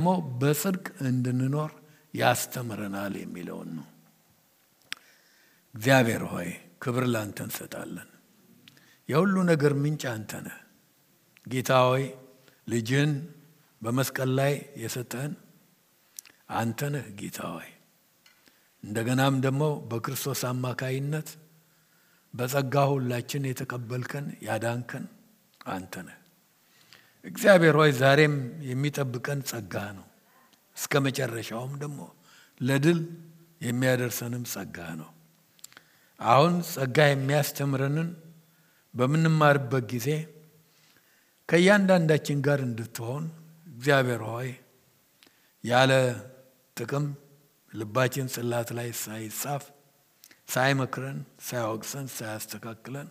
ደግሞ በጽድቅ እንድንኖር ያስተምረናል የሚለው ነው። እግዚአብሔር ሆይ ክብር ላንተ እንሰጣለን። የሁሉ ነገር ምንጭ አንተ ነህ። ጌታ ሆይ ልጅን በመስቀል ላይ የሰጠን አንተ ነህ ጌታ ሆይ። እንደገናም ደግሞ በክርስቶስ አማካይነት በጸጋ ሁላችን የተቀበልከን ያዳንከን አንተ ነህ። እግዚአብሔር ሆይ ዛሬም የሚጠብቀን ጸጋ ነው። እስከ መጨረሻውም ደግሞ ለድል የሚያደርሰንም ጸጋ ነው። አሁን ጸጋ የሚያስተምረንን በምንማርበት ጊዜ ከእያንዳንዳችን ጋር እንድትሆን እግዚአብሔር ሆይ ያለ ጥቅም ልባችን ጽላት ላይ ሳይጻፍ ሳይመክረን ሳይወቅሰን ሳያስተካክለን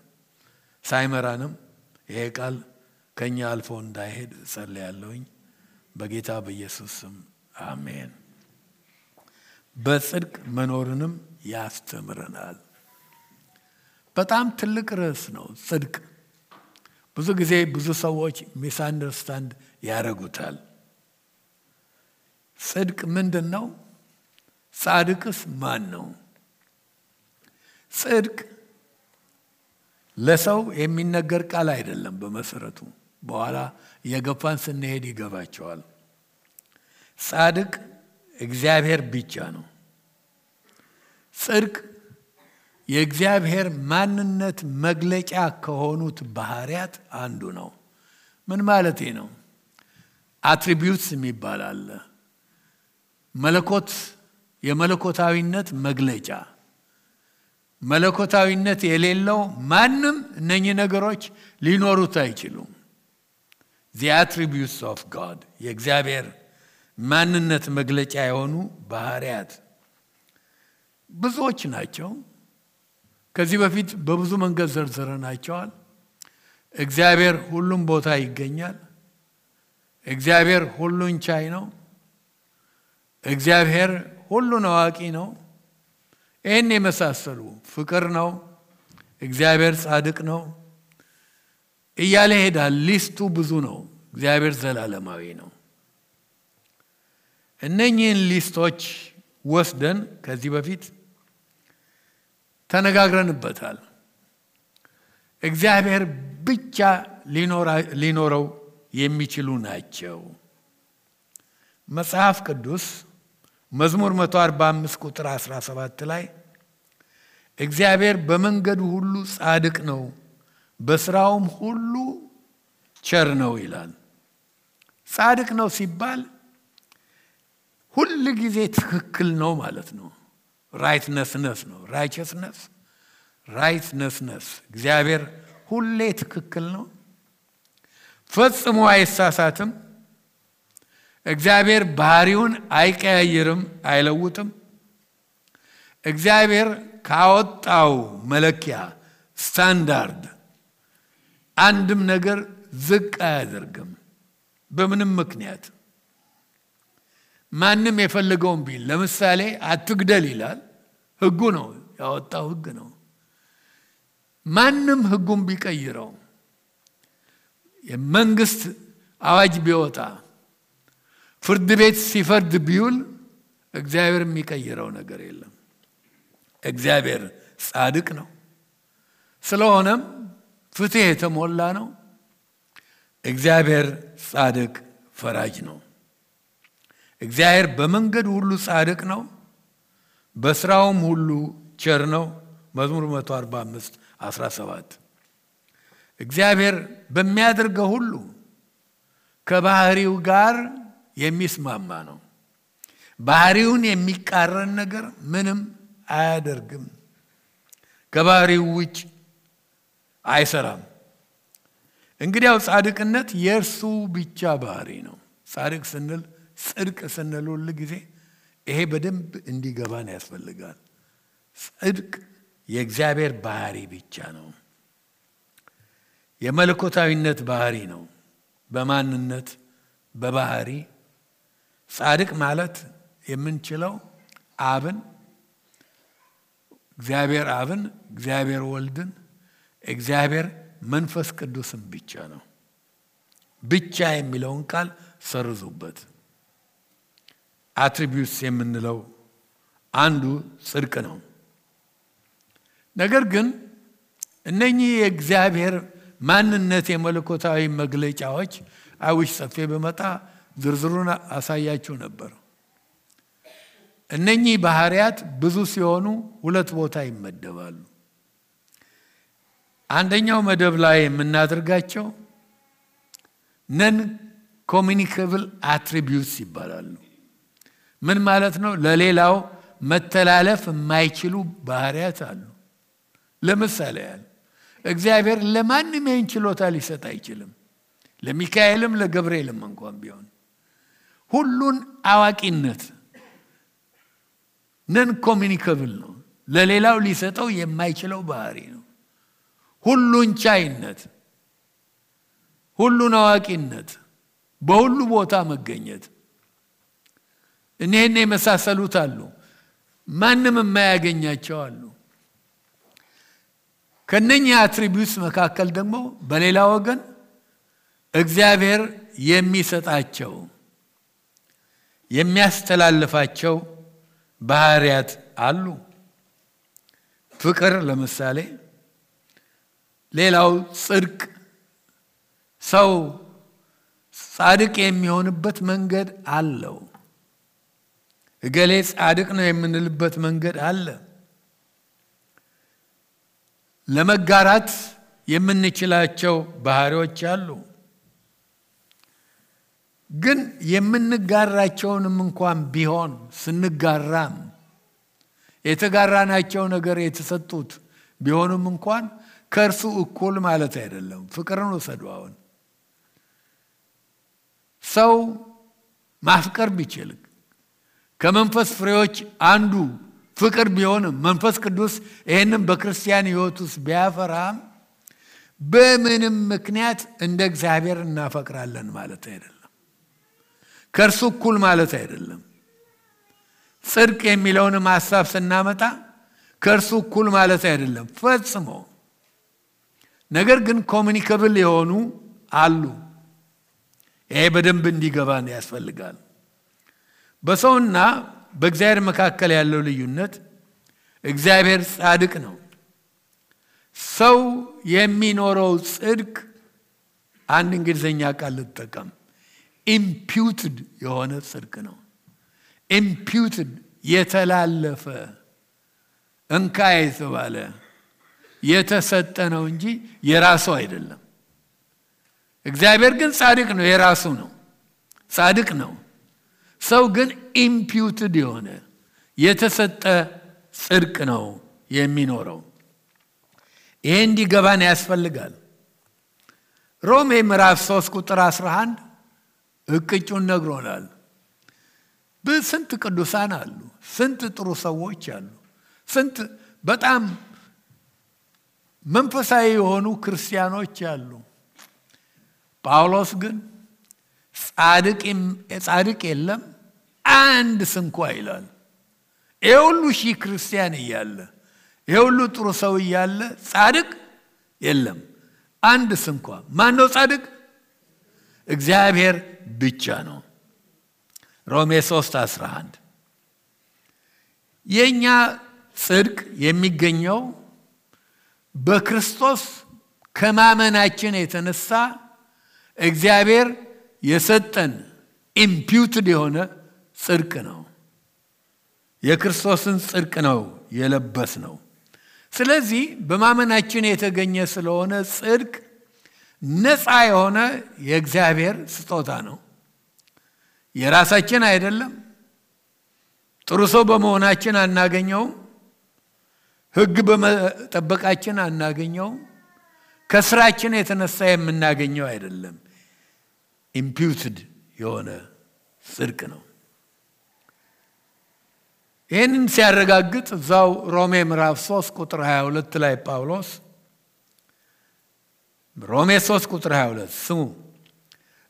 ሳይመራንም ይሄ ቃል ከኛ አልፎ እንዳይሄድ ጸልያለሁኝ በጌታ በኢየሱስ ስም አሜን። በጽድቅ መኖርንም ያስተምረናል። በጣም ትልቅ ርዕስ ነው ጽድቅ። ብዙ ጊዜ ብዙ ሰዎች ሚስ አንደርስታንድ ያደርጉታል። ጽድቅ ምንድነው? ጻድቅስ ማን ነው? ጽድቅ ለሰው የሚነገር ቃል አይደለም በመሰረቱ። በኋላ የገፋን ስንሄድ ይገባቸዋል። ጻድቅ እግዚአብሔር ብቻ ነው። ጽድቅ የእግዚአብሔር ማንነት መግለጫ ከሆኑት ባህሪያት አንዱ ነው። ምን ማለት ነው? አትሪቢዩትስ የሚባል አለ። መለኮት የመለኮታዊነት መግለጫ። መለኮታዊነት የሌለው ማንም እነኚህ ነገሮች ሊኖሩት አይችሉም። the attributes of God የእግዚአብሔር ማንነት መግለጫ የሆኑ ባህሪያት ብዙዎች ናቸው። ከዚህ በፊት በብዙ መንገድ ዘርዝረናቸዋል። እግዚአብሔር ሁሉም ቦታ ይገኛል። እግዚአብሔር ሁሉን ቻይ ነው። እግዚአብሔር ሁሉን አዋቂ ነው። ይህን የመሳሰሉ ፍቅር ነው። እግዚአብሔር ጻድቅ ነው እያለ ሄዳል። ሊስቱ ብዙ ነው። እግዚአብሔር ዘላለማዊ ነው። እነኚህን ሊስቶች ወስደን ከዚህ በፊት ተነጋግረንበታል። እግዚአብሔር ብቻ ሊኖረው የሚችሉ ናቸው። መጽሐፍ ቅዱስ መዝሙር 145 ቁጥር 17 ላይ እግዚአብሔር በመንገዱ ሁሉ ጻድቅ ነው፣ በስራውም ሁሉ ቸር ነው ይላል። ጻድቅ ነው ሲባል ሁሉ ጊዜ ትክክል ነው ማለት ነው። rightness ነው። rightness እግዚአብሔር ሁሌ ትክክል ነው። ፈጽሞ አይሳሳትም። እግዚአብሔር ባህሪውን አይቀያየርም፣ አይለውጥም። እግዚአብሔር ካወጣው መለኪያ ስታንዳርድ አንድም ነገር ዝቅ አያደርግም በምንም ምክንያት። ማንም የፈለገውን ቢል ለምሳሌ አትግደል ይላል። ህጉ ነው፣ ያወጣው ህግ ነው። ማንም ህጉን ቢቀይረው የመንግስት አዋጅ ቢወጣ ፍርድ ቤት ሲፈርድ ቢውል እግዚአብሔር የሚቀይረው ነገር የለም። እግዚአብሔር ጻድቅ ነው። ስለሆነም ፍትህ የተሞላ ነው። እግዚአብሔር ጻድቅ ፈራጅ ነው። እግዚአብሔር በመንገዱ ሁሉ ጻድቅ ነው፣ በስራውም ሁሉ ቸር ነው። መዝሙር 145 17 እግዚአብሔር በሚያደርገው ሁሉ ከባህሪው ጋር የሚስማማ ነው። ባህሪውን የሚቃረን ነገር ምንም አያደርግም። ከባህሪው ውጭ አይሰራም። እንግዲያው ጻድቅነት የእርሱ ብቻ ባህሪ ነው። ጻድቅ ስንል ጽድቅ ስንል ሁሉ ጊዜ ይሄ በደንብ እንዲገባን ያስፈልጋል። ጽድቅ የእግዚአብሔር ባህሪ ብቻ ነው። የመለኮታዊነት ባህሪ ነው። በማንነት በባህሪ ጻድቅ ማለት የምንችለው እግዚአብሔር አብን፣ እግዚአብሔር ወልድን፣ እግዚአብሔር መንፈስ ቅዱስን ብቻ ነው። ብቻ የሚለውን ቃል ሰርዙበት። አትሪቢዩትስ የምንለው አንዱ ጽድቅ ነው። ነገር ግን እነኚህ የእግዚአብሔር ማንነት የመለኮታዊ መግለጫዎች አይውሽ ሰፊ በመጣ ዝርዝሩን አሳያችሁ ነበር። እነኚህ ባህሪያት ብዙ ሲሆኑ ሁለት ቦታ ይመደባሉ። አንደኛው መደብ ላይ የምናደርጋቸው ነን ኮሚኒኬብል አትሪቢዩትስ ይባላሉ። ምን ማለት ነው? ለሌላው መተላለፍ የማይችሉ ባህሪያት አሉ። ለምሳሌ እግዚአብሔር ለማንም ይህን ችሎታ ሊሰጥ አይችልም። ለሚካኤልም ለገብርኤልም እንኳን ቢሆን ሁሉን አዋቂነት ነን ኮሚኒኬብል ነው። ለሌላው ሊሰጠው የማይችለው ባህሪ ነው። ሁሉን ቻይነት፣ ሁሉን አዋቂነት፣ በሁሉ ቦታ መገኘት፣ እነኚህ የመሳሰሉት አሉ። ማንም የማያገኛቸው አሉ። ከነኚህ አትሪቢዩትስ መካከል ደግሞ በሌላ ወገን እግዚአብሔር የሚሰጣቸው የሚያስተላልፋቸው ባህሪያት አሉ። ፍቅር ለምሳሌ፣ ሌላው ጽድቅ፣ ሰው ጻድቅ የሚሆንበት መንገድ አለው። እገሌ ጻድቅ ነው የምንልበት መንገድ አለ። ለመጋራት የምንችላቸው ባህሪዎች አሉ። ግን የምንጋራቸውንም እንኳን ቢሆን ስንጋራም የተጋራናቸው ነገር የተሰጡት ቢሆንም እንኳን ከእርሱ እኩል ማለት አይደለም። ፍቅርን ወሰዷውን ሰው ማፍቀር ቢችል ከመንፈስ ፍሬዎች አንዱ ፍቅር ቢሆንም መንፈስ ቅዱስ ይሄንን በክርስቲያን ሕይወት ውስጥ ቢያፈራም በምንም ምክንያት እንደ እግዚአብሔር እናፈቅራለን ማለት አይደለም። ከእርሱ እኩል ማለት አይደለም። ጽድቅ የሚለውንም ሐሳብ ስናመጣ ከእርሱ እኩል ማለት አይደለም ፈጽሞ። ነገር ግን ኮሚኒኬብል የሆኑ አሉ። ይሄ በደንብ እንዲገባን ያስፈልጋል። በሰውና በእግዚአብሔር መካከል ያለው ልዩነት እግዚአብሔር ጻድቅ ነው። ሰው የሚኖረው ጽድቅ አንድ እንግሊዘኛ ቃል ልጠቀም፣ ኢምፒውትድ የሆነ ጽድቅ ነው። ኢምፒውትድ የተላለፈ እንካ የተባለ የተሰጠ ነው እንጂ የራሱ አይደለም። እግዚአብሔር ግን ጻድቅ ነው፣ የራሱ ነው፣ ጻድቅ ነው። ሰው ግን ኢምፒውትድ የሆነ የተሰጠ ጽድቅ ነው የሚኖረው። ይሄ እንዲገባን ያስፈልጋል። ሮሜ ምዕራፍ 3 ቁጥር 11 እቅጩን ነግሮናል። በስንት ቅዱሳን አሉ፣ ስንት ጥሩ ሰዎች አሉ፣ ስንት በጣም መንፈሳዊ የሆኑ ክርስቲያኖች አሉ። ጳውሎስ ግን ጻድቅ የለም አንድ ስንኳ ይላል። ይሄ ሁሉ ሺህ ክርስቲያን እያለ፣ ይሄ ሁሉ ጥሩ ሰው እያለ ጻድቅ የለም አንድ ስንኳ። ማን ነው ጻድቅ? እግዚአብሔር ብቻ ነው። ሮሜ 3:11 የኛ ጽድቅ የሚገኘው በክርስቶስ ከማመናችን የተነሳ እግዚአብሔር የሰጠን ኢምፒውትድ የሆነ ጽድቅ ነው። የክርስቶስን ጽድቅ ነው የለበስ ነው። ስለዚህ በማመናችን የተገኘ ስለሆነ ጽድቅ ነፃ የሆነ የእግዚአብሔር ስጦታ ነው። የራሳችን አይደለም። ጥሩ ሰው በመሆናችን አናገኘውም። ሕግ በመጠበቃችን አናገኘውም። ከስራችን የተነሳ የምናገኘው አይደለም። ኢምፒውትድ የሆነ ጽድቅ ነው። ይህንን ሲያረጋግጥ እዛው ሮሜ ምዕራፍ 3 ቁጥር 22 ላይ ጳውሎስ ሮሜ 3 ቁጥር 22 ስሙ፣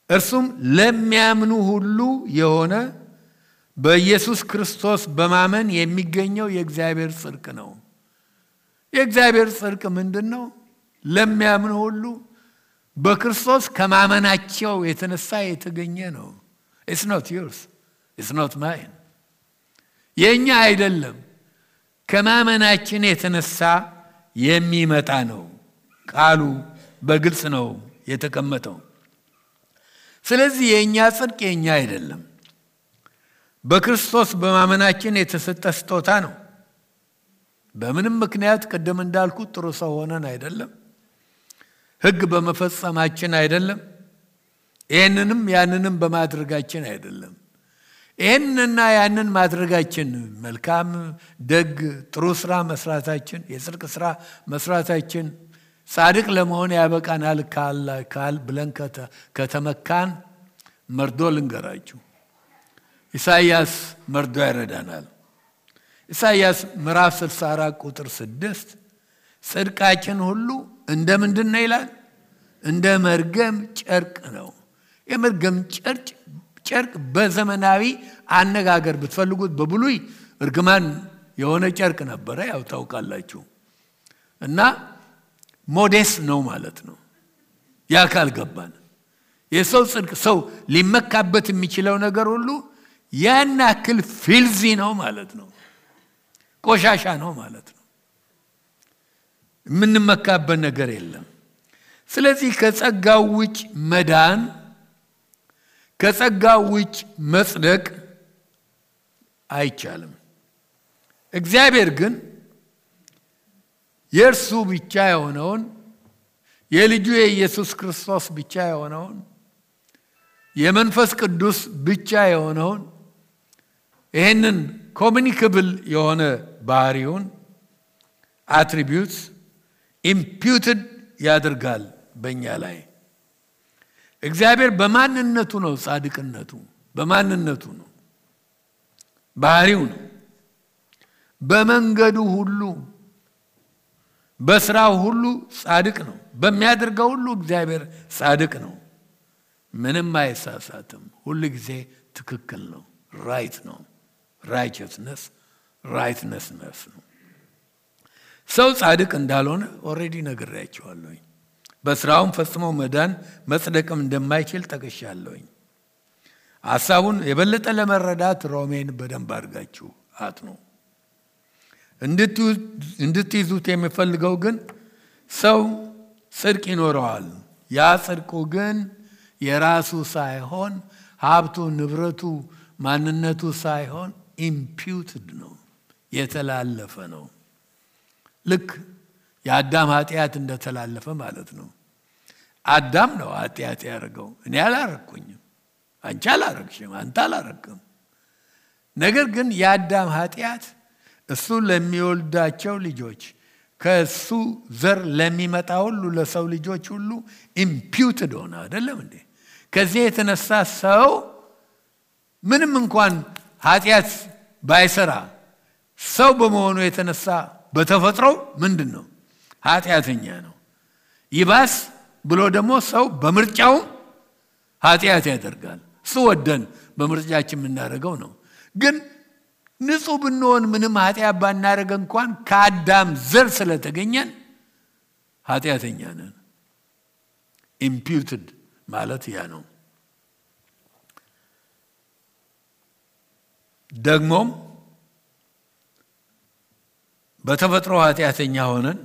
እርሱም ለሚያምኑ ሁሉ የሆነ በኢየሱስ ክርስቶስ በማመን የሚገኘው የእግዚአብሔር ጽድቅ ነው። የእግዚአብሔር ጽድቅ ምንድነው? ለሚያምኑ ሁሉ በክርስቶስ ከማመናቸው የተነሳ የተገኘ ነው። It's not yours. It's not mine. የኛ አይደለም ከማመናችን የተነሳ የሚመጣ ነው ቃሉ በግልጽ ነው የተቀመጠው ስለዚህ የኛ ጽድቅ የኛ አይደለም በክርስቶስ በማመናችን የተሰጠ ስጦታ ነው በምንም ምክንያት ቀደም እንዳልኩት ጥሩ ሰው ሆነን አይደለም ሕግ በመፈጸማችን አይደለም ይሄንንም ያንንም በማድረጋችን አይደለም ይሄንንና ያንን ማድረጋችን መልካም ደግ ጥሩ ስራ መስራታችን የጽድቅ ስራ መስራታችን ጻድቅ ለመሆን ያበቃናል ካል ብለን ከተመካን መርዶ ልንገራችሁ ኢሳይያስ መርዶ ያረዳናል ኢሳይያስ ምዕራፍ 64 ቁጥር 6 ጽድቃችን ሁሉ እንደ ምንድነው ይላል እንደ መርገም ጨርቅ ነው የመርገም ጨርቅ በዘመናዊ አነጋገር ብትፈልጉት በብሉይ እርግማን የሆነ ጨርቅ ነበር ያው ታውቃላችሁ እና ሞዴስ ነው ማለት ነው ያካል ገባን የሰው ጽድቅ ሰው ሊመካበት የሚችለው ነገር ሁሉ ያናክል ፊልዚ ነው ማለት ነው ቆሻሻ ነው ማለት ነው ምንመካበት ነገር የለም ስለዚህ ከጸጋው ውጭ መዳን ከጸጋው ውጭ መጽደቅ አይቻልም እግዚአብሔር ግን የእርሱ ብቻ የሆነውን የልጁ የኢየሱስ ክርስቶስ ብቻ የሆነውን የመንፈስ ቅዱስ ብቻ የሆነውን ይሄንን ኮሙኒኬብል የሆነ ባህሪውን attributes imputed ያደርጋል በእኛ ላይ እግዚአብሔር በማንነቱ ነው ጻድቅነቱ በማንነቱ ነው ባህሪው ነው በመንገዱ ሁሉ በስራው ሁሉ ጻድቅ ነው በሚያደርገው ሁሉ እግዚአብሔር ጻድቅ ነው ምንም አይሳሳትም ሁሉ ጊዜ ትክክል ነው ራይት ነው righteousness ነው ሰው ጻድቅ እንዳልሆነ ኦሬዲ ነግሬያችኋለሁ በስራውም ፈጽሞ መዳን መጽደቅም እንደማይችል ጠቅሻለሁ ሐሳቡን የበለጠ ለመረዳት ሮሜን በደንብ አድርጋችሁ አጥኑ እንድትይዙት የሚፈልገው ግን ሰው ጽድቅ ይኖረዋል ያ ጽድቁ ግን የራሱ ሳይሆን ሀብቱ ንብረቱ ማንነቱ ሳይሆን imputed ነው የተላለፈ ነው ልክ የአዳም ኃጢአት እንደተላለፈ ማለት ነው አዳም ነው ኃጢአት ያደረገው እኔ አላረኩኝም አንቺ አላረክሽም አንተ አላረክም ነገር ግን የአዳም ኃጢአት እሱ ለሚወልዳቸው ልጆች ከሱ ዘር ለሚመጣ ሁሉ ለሰው ልጆች ሁሉ imputed ሆነ አይደለም እንዴ ከዚህ የተነሳ ሰው ምንም እንኳን ኃጢአት ባይሰራ ሰው በመሆኑ የተነሳ በተፈጥሮ ምንድነው ኃጢአተኛ ነው ይባስ ብሎ ደግሞ ሰው በምርጫው ኃጢአት ያደርጋል እሱ ወደን በምርጫችን የምናደርገው ነው ግን ንጹህ ብንሆን ምንም ኃጢአት ባናደርግ እንኳን ከአዳም ዘር ስለተገኘን ኃጢአተኛ ነን imputed ማለት ያ ነው ደግሞም በተፈጥሮ ኃጢአተኛ ሆነን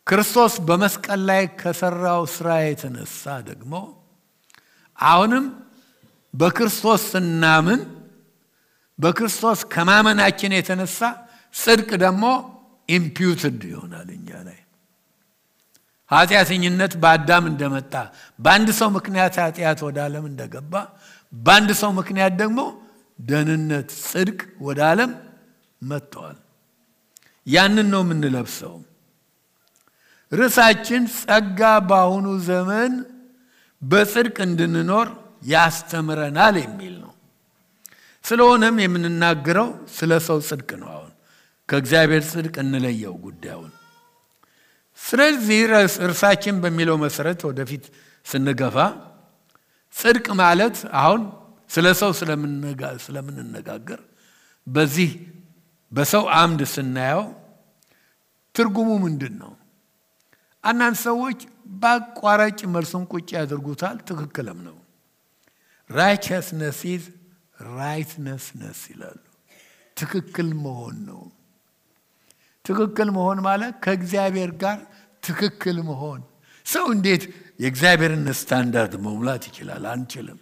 ክርስቶስ በመስቀል ላይ ከሰራው ስራ የተነሳ ደግሞ አሁንም በክርስቶስ ስናምን በክርስቶስ ከማመናችን የተነሳ ጽድቅ ደግሞ imputed ይሆናል እኛ ላይ ኃጢአተኝነት በአዳም እንደመጣ በአንድ ሰው ምክንያት ኃጢአት ወደ ዓለም እንደገባ በአንድ ሰው ምክንያት ደግሞ ደህንነት ጽድቅ ወደ ዓለም መጥቷል ያንን ነው የምንለብሰው ርዕሳችን ጸጋ በአሁኑ ዘመን በጽድቅ እንድንኖር ያስተምረናል የሚል ነው ስለሆነም የምንናገረው ስለ ሰው ጽድቅ ነው አሁን ከእግዚአብሔር ጽድቅ እንለየው ጉዳዩን ስለዚህ ርዕሳችን በሚለው መሰረት ወደፊት ስንገፋ ጽድቅ ማለት አሁን ስለ ሰው ስለምንነጋገር በዚህ በሰው አምድ ስናየው ትርጉሙ ምንድነው አንዳንድ ሰዎች በአቋራጭ መልሱን ቁጭ ያደርጉታል ትክክልም ነው righteousness is rightness ይላሉ። ትክክል መሆን ነው። ትክክል መሆን ማለት ከእግዚአብሔር ጋር ትክክል መሆን። ሰው እንዴት የእግዚአብሔርን ስታንዳርድ መሙላት ይችላል? አንችልም።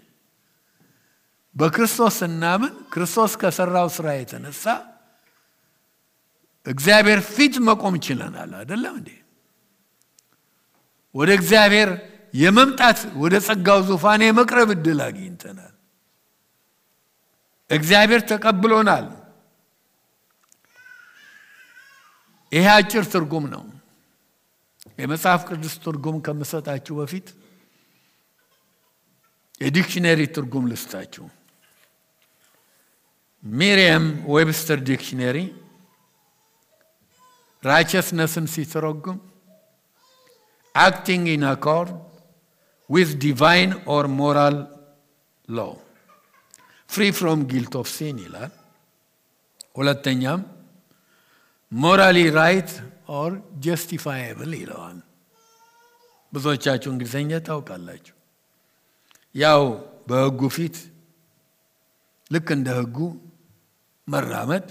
በክርስቶስ እናምን ክርስቶስ ከሰራው ስራ የተነሳ እግዚአብሔር ፊት መቆም ይችላል አይደለም እንዴ? ወደ እግዚአብሔር የመምጣት ወደ ጸጋው ዙፋን የመቅረብ እድል አግኝተናል። እግዚአብሔር ተቀብሎናል። ይሄ አጭር ትርጉም ነው። የመጽሐፍ ቅዱስ ትርጉም ከመሰጣችሁ በፊት የዲክሽነሪ ትርጉም ልስጣችሁ። ሜሪየም ዌብስተር ዲክሽነሪ righteousness-ን ሲተረጉም acting in accord with divine or moral law, free from guilt of sin ይላል። ሁለተኛም morally right or justifiable ይለዋል። ብዙዎቻችሁ እንግሊዘኛ ታውቃላችሁ። ያው በሕጉ ፊት ልክ እንደ ሕጉ መራመድ፣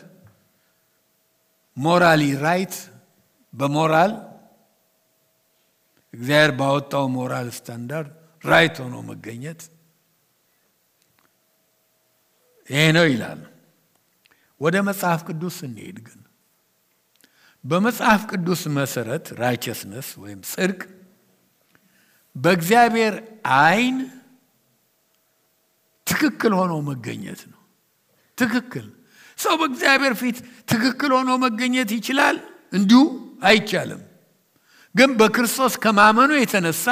ሞራሊ ራይት በሞራል እግዚአብሔር ባወጣው ሞራል ስታንዳርድ ራይት ሆኖ መገኘት ይሄ ነው ይላል። ወደ መጽሐፍ ቅዱስ እንሄድ ግን በመጽሐፍ ቅዱስ መሰረት righteousness ወይም ጽድቅ በእግዚአብሔር አይን ትክክል ሆኖ መገኘት ነው። ትክክል ሰው በእግዚአብሔር ፊት ትክክል ሆኖ መገኘት ይችላል? እንዲሁ አይቻልም። ግን በክርስቶስ ከማመኑ የተነሳ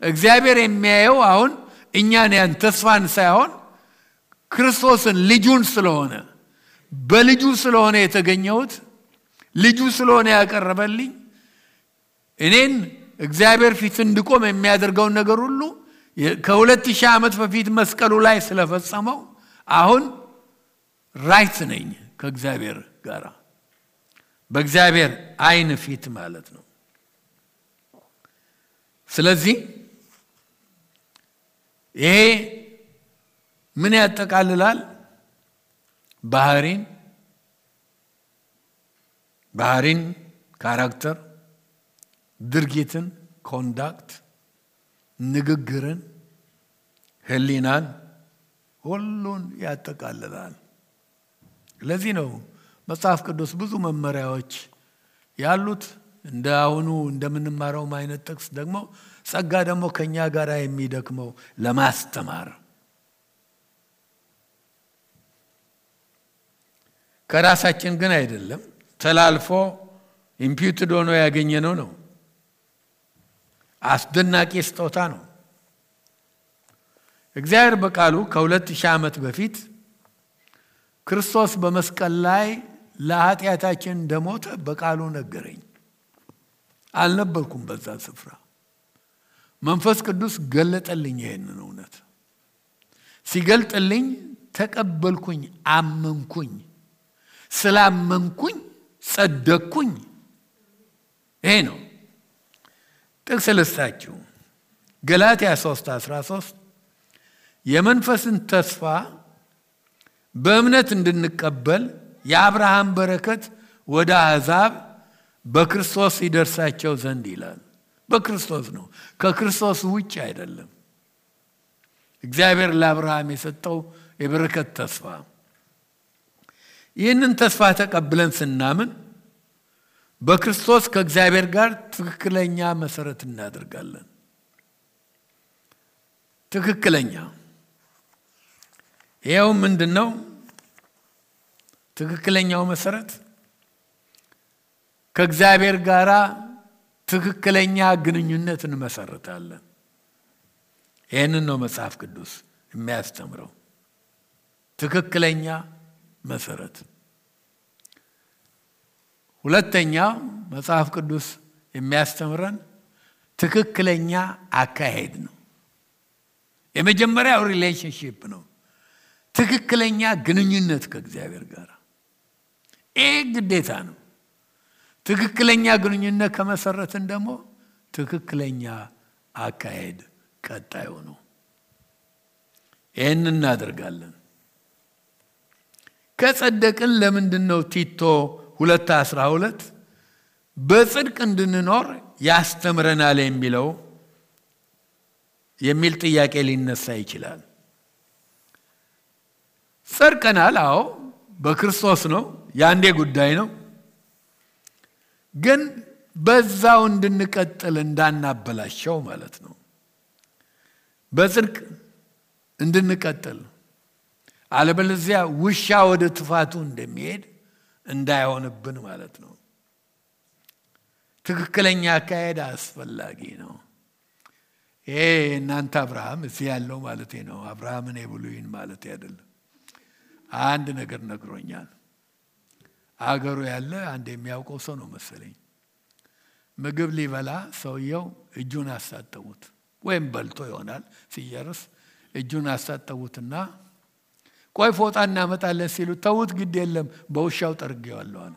እግዚአብሔር የሚያየው አሁን እኛን ያን ተስፋን ሳይሆን ክርስቶስን ልጁን ስለሆነ በልጁ ስለሆነ የተገኘሁት ልጁ ስለሆነ ያቀረበልኝ እኔን እግዚአብሔር ፊት እንድቆም የሚያደርገው ነገር ሁሉ ከ2000 ዓመት በፊት መስቀሉ ላይ ስለፈጸመው አሁን ራይት ነኝ ከእግዚአብሔር ጋር በእግዚአብሔር አይን ፊት ማለት ነው። ስለዚህ ይሄ ምን ያጠቃልላል? ባህሪን ካራክተር፣ ድርጊትን ኮንዳክት፣ ንግግርን፣ ህሊናን ሁሉን ያጠቃልላል። ለዚህ ነው መጽሐፍ ቅዱስ ብዙ መመሪያዎች ያሉት። እንደ አሁኑ እንደምንማረው አይነት ጥቅስ ደግሞ ጸጋ ደግሞ ከኛ ጋር የሚደክመው ለማስተማር ከራሳችን ግን አይደለም፣ ተላልፎ ኢምፒውትድ ሆኖ ያገኘነው ነው። አስደናቂ ስጦታ ነው። እግዚአብሔር በቃሉ ከ2000 ዓመት በፊት ክርስቶስ በመስቀል ላይ ለኃጢአታችን እንደሞተ በቃሉ ነገረኝ። አልነበርኩም በዛ ስፍራ። መንፈስ ቅዱስ ገለጠልኝ ይሄንን እውነት። ሲገልጥልኝ ተቀበልኩኝ፣ አመንኩኝ። ስላመንኩኝ ጸደቅኩኝ። ይሄ ነው። ጥቅስ ልስጣችሁ። ገላትያ 3:13 የመንፈስን ተስፋ በእምነት እንድንቀበል የአብርሃም በረከት ወደ አሕዛብ በክርስቶስ ይደርሳቸው ዘንድ ይላል። በክርስቶስ ነው፣ ከክርስቶስ ውጭ አይደለም። እግዚአብሔር ለአብርሃም የሰጠው የበረከት ተስፋ። ይህንን ተስፋ ተቀብለን ስናምን በክርስቶስ ከእግዚአብሔር ጋር ትክክለኛ መሰረት እናደርጋለን። ትክክለኛ ይሄው ምንድነው? ትክክለኛው መሰረት ከእግዚአብሔር ጋር ትክክለኛ ግንኙነት እንመሰርታለን። ይሄንን ነው መጽሐፍ ቅዱስ የሚያስተምረው። ትክክለኛ መሰረት። ሁለተኛው መጽሐፍ ቅዱስ የሚያስተምረን ትክክለኛ አካሄድ ነው። የመጀመሪያው ሪሌሽንሺፕ ነው፣ ትክክለኛ ግንኙነት ከእግዚአብሔር ጋር። ይሄ ግዴታ ነው። ትክክለኛ ግንኙነት ከመሰረትን ደግሞ ትክክለኛ አካሄድ ቀጣዩ ነው። ይሄን እናደርጋለን። ከጸደቅን ለምንድነው ቲቶ 2:12 በጽድቅ እንድንኖር ያስተምረናል የሚል ጥያቄ ሊነሳ ይችላል። ጸድቀናል፣ አዎ በክርስቶስ ነው፣ ያንዴ ጉዳይ ነው። ግን በዛው እንድንቀጥል እንዳናበላሸው ማለት ነው። በጽድቅ እንድንቀጥል፣ አለበለዚያ ውሻ ወደ ጥፋቱ እንደሚሄድ እንዳይሆንብን ማለት ነው። ትክክለኛ አካሄድ አስፈላጊ ነው። ይሄ እናንተ አብርሃም እዚህ ያለው ማለት ነው። አብርሃምን የብሉይን ማለት አይደለም። አንድ ነገር ነግሮኛል። አገሩ ያለ አንድ የሚያውቀው ሰው ነው መሰለኝ። ምግብ ሊበላ ሰውየው እጁን አሳጠቡት፣ ወይም በልቶ ይሆናል። ሲጨርስ እጁን አሳጠቡትና ቆይ ፎጣ እናመጣለን ሲሉ ተውት፣ ግድ የለም በውሻው ጠርጌዋለሁ አለ።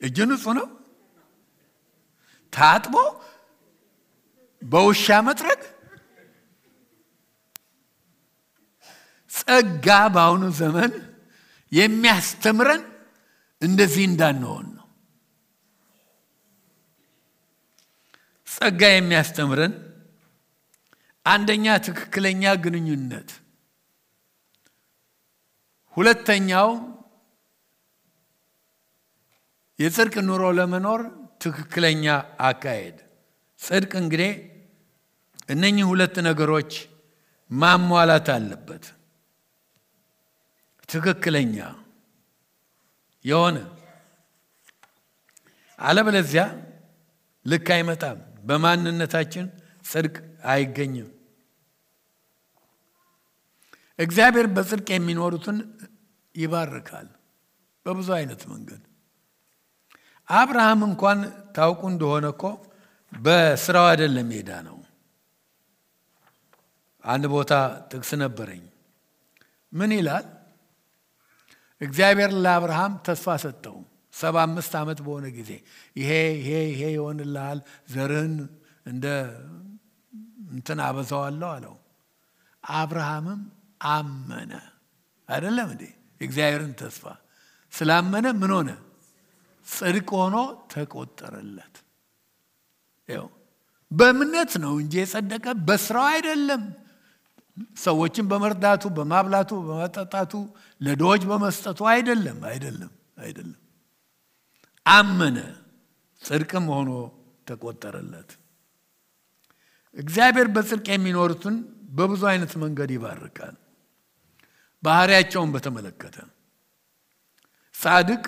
እጁ ንጹህ ነው። ታጥቦ በውሻ መጥረግ። ጸጋ በአሁኑ ዘመን የሚያስተምረን እንደዚህ እንዳንሆን ነው። ጸጋ የሚያስተምረን አንደኛ ትክክለኛ ግንኙነት፣ ሁለተኛው የጽድቅ ኑሮ ለመኖር ትክክለኛ አካሄድ። ጽድቅ እንግዲህ እነኚህ ሁለት ነገሮች ማሟላት አለበት። ትክክለኛ የሆነ አለበለዚያ ልክ አይመጣም። በማንነታችን ጽድቅ አይገኝም። እግዚአብሔር በጽድቅ የሚኖሩትን ይባርካል በብዙ አይነት መንገድ። አብርሃም እንኳን ታውቁ እንደሆነ እኮ በስራው አይደለም ሄዳ ነው። አንድ ቦታ ጥቅስ ነበረኝ። ምን ይላል? እግዚአብሔር ለአብርሃም ተስፋ ሰጠው። 75 ዓመት በሆነ ጊዜ ይሄ ይሆንልሃል፣ ዘርህን እንደ እንትን አበዛዋለሁ አለው። አብርሃምም አመነ። አይደለም እንዴ? እግዚአብሔርን ተስፋ ስላመነ ምን ሆነ? ጽድቅ ሆኖ ተቆጠረለት። ይኸው በእምነት ነው እንጂ የጸደቀ በስራው አይደለም። ሰዎችን በመርዳቱ፣ በማብላቱ፣ በመጠጣቱ፣ ለድሆች በመስጠቱ አይደለም። አመነ፣ ጽድቅም ሆኖ ተቆጠረለት። እግዚአብሔር በጽድቅ የሚኖሩትን በብዙ አይነት መንገድ ይባርካል። ባህሪያቸውን በተመለከተ ጻድቅ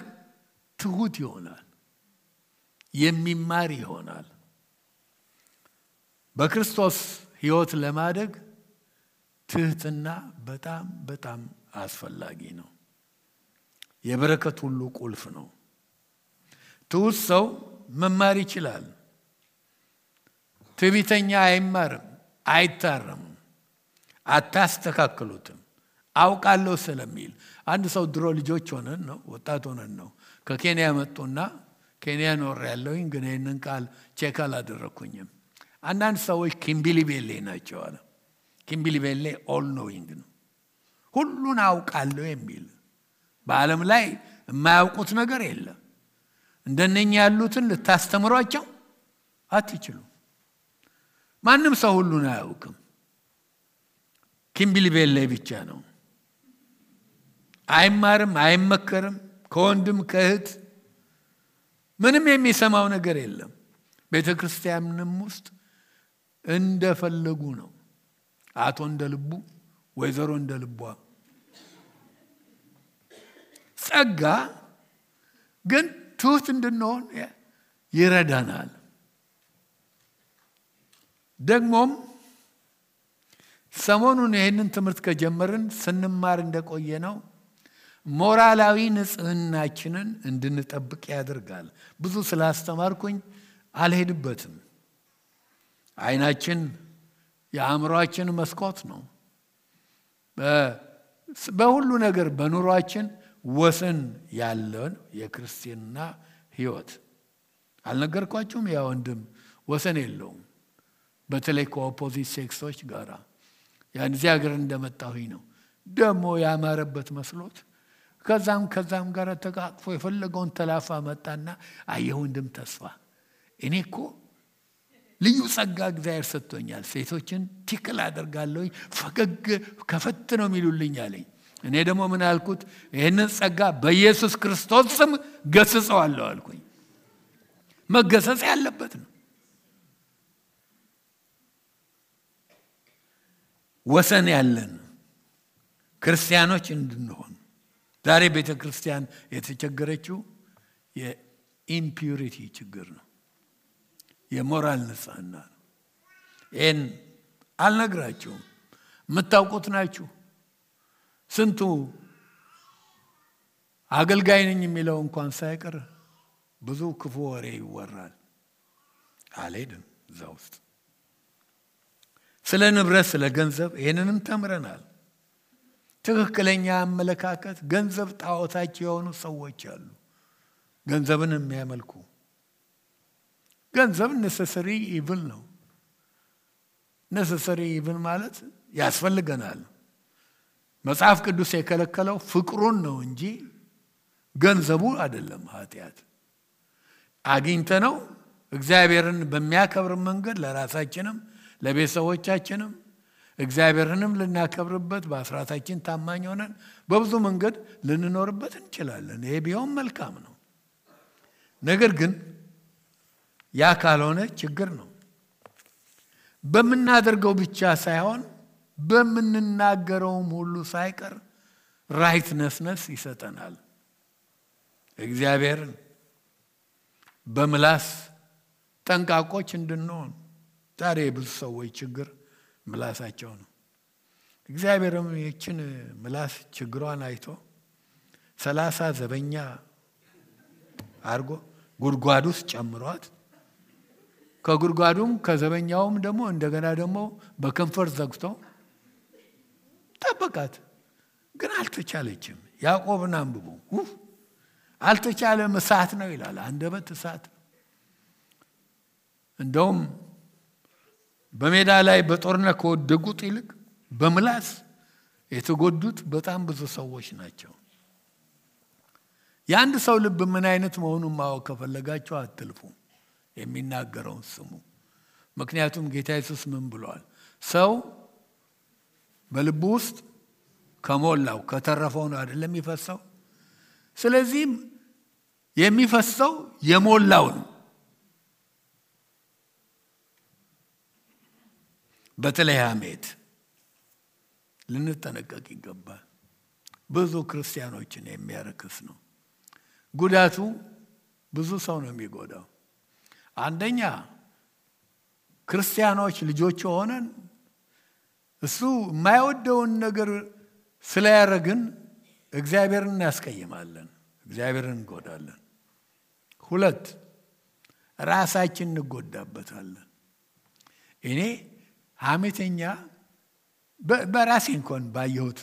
ትሁት ይሆናል፣ የሚማር ይሆናል። በክርስቶስ ሕይወት ለማደግ ትህትና በጣም አስፈላጊ ነው። የበረከት ሁሉ ቁልፍ ነው። ትሁት ሰው መማር ይችላል። ትዕቢተኛ አይማርም፣ አይታረምም፣ አታስተካክሉትም። አውቃለሁ ስለሚል አንድ ሰው ድሮ ልጆች ሆነን ነው ወጣት ሆነን ነው ከኬንያ መጡና ኬንያ ኖር ያለውኝ ግን ይህንን ቃል ቼክ አላደረኩኝም። አንዳንድ ሰዎች ኪምቢሊቤሌ ናቸው አለ። ኪምቢሊቤሌ ኦል ኖዊንግ ነው፣ ሁሉን አውቃለሁ የሚል። በዓለም ላይ የማያውቁት ነገር የለም። እንደነኛ ያሉትን ልታስተምሯቸው አትችሉ። ማንም ሰው ሁሉን አያውቅም። ኪምቢሊቤሌ ብቻ ነው። አይማርም፣ አይመከርም። ከወንድም ከእህት ምንም የሚሰማው ነገር የለም። ቤተክርስቲያንም ውስጥ እንደፈለጉ ነው። አቶ እንደልቡ፣ ወይዘሮ እንደልቧ። ጸጋ ግን ትሁት እንድንሆን ይረዳናል። ደግሞም ሰሞኑን ይህንን ትምህርት ከጀመርን ስንማር እንደቆየ ነው ሞራላዊ ንጽህናችንን እንድንጠብቅ ያደርጋል። ብዙ ስላስተማርኩኝ አልሄድበትም። አይናችን የአእምሮአችን መስኮት ነው። በሁሉ ነገር በኑሯችን ወሰን ያለን የክርስቲያና ሕይወት አልነገርኳችሁም? ያ ወንድም ወሰን የለውም። በተለይ ከኦፖዚት ሴክሶች ጋር ያን እዚህ ሀገር እንደመጣሁኝ ነው ደግሞ ያማረበት መስሎት ከዛም ጋር ተቃቅፎ የፈለገውን ተላፋ መጣና አየሁ ወንድም ተስፋ እኔ እኮ ልዩ ጸጋ እግዚአብሔር ሰጥቶኛል ሴቶችን ትክክል አደርጋለሁኝ ፈገግ ከፈት ነው የሚሉልኝ አለኝ እኔ ደግሞ ምን አልኩት ይሄንን ጸጋ በኢየሱስ ክርስቶስ ስም ገስጸዋለሁ አልኩኝ መገሰጽ ያለበት ነው ወሰን ያለን ክርስቲያኖች እንድንሆን ዛሬ ቤተክርስቲያን የተቸገረችው የኢምፒዩሪቲ ችግር ነው የሞራል ንጽህና ነው ይሄን አልነግራችሁም የምታውቁት ናችሁ ስንቱ አገልጋይ ነኝ የሚለው እንኳን ሳይቀር ብዙ ክፉ ወሬ ይወራል አልሄድም እዛ ውስጥ ስለ ንብረት ስለ ገንዘብ ይሄንንም ተምረናል ትክክለኛ አመለካከት ገንዘብ ጣዖታቸው የሆኑ ሰዎች አሉ ገንዘብን የሚያመልኩ ገንዘብ necessary evil ነው necessary evil ማለት ያስፈልገናል መጽሐፍ ቅዱስ የከለከለው ፍቅሩን ነው እንጂ ገንዘቡ አይደለም ኃጢያት አግኝተነው እግዚአብሔርን በሚያከብር መንገድ ለራሳችንም ለቤተሰቦቻችንም እግዚአብሔርንም ልናከብርበት በአስራታችን ታማኝ ሆነን በብዙ መንገድ ልንኖርበት እንችላለን ይሄ ቢሆን መልካም ነው ነገር ግን ያ ካልሆነ ችግር ነው በመናደርገው ብቻ ሳይሆን በመንናገረውም ሁሉ ሳይቀር ራይትነስነስ ይሰጠናል እግዚአብሔር በምላስ ጠንቃቆች እንድንሆን ዛሬ ብዙ ሰዎች ችግር ምላሳቸው ነው እግዚአብሔርም ይችን ምላስ ችግሯን አይቶ 30 ዘበኛ አርጎ ጉድጓድ ውስጥ ጨምሯት ከጉድጓዱም ከዘበኛውም ደግሞ እንደገና ደግሞ በከንፈር ዘግቶ ጠበቃት ግን አልተቻለችም ያዕቆብን አንብቡ አልተቻለም እሳት ነው ይላል አንደበት እሳት እንደውም በሜዳ ላይ በጦርነት ከወደቁት ይልቅ በምላስ የተጎዱት በጣም ብዙ ሰዎች ናቸው የአንድ ሰው ልብ ምን አይነት መሆኑን ማወቅ ከፈለጋችሁ አትልፉ የሚናገረውን ስሙ ምክንያቱም ጌታ ኢየሱስ ምን ብሏል ሰው በልቡ ውስጥ ከሞላው ከተረፈው ነው አይደለም የሚፈሰው ስለዚህ የሚፈሰው የሞላው ነው በተለይ ሐሜት ልንጠነቀቅ ይገባል ብዙ ክርስቲያኖችን የሚያረክስ ነው ጉዳቱ ብዙ ሰው ነው የሚጎዳው አንደኛ ክርስቲያኖች ልጆች ሆነን እሱ የማይወደውን ነገር ስለያረግን እግዚአብሔርን ያስቀይማለን እግዚአብሔርን እንጎዳለን ሁለት ራሳችን እንጎዳበታለን እኔ ሐሜተኛ በራሴ እንኳን ባየሁት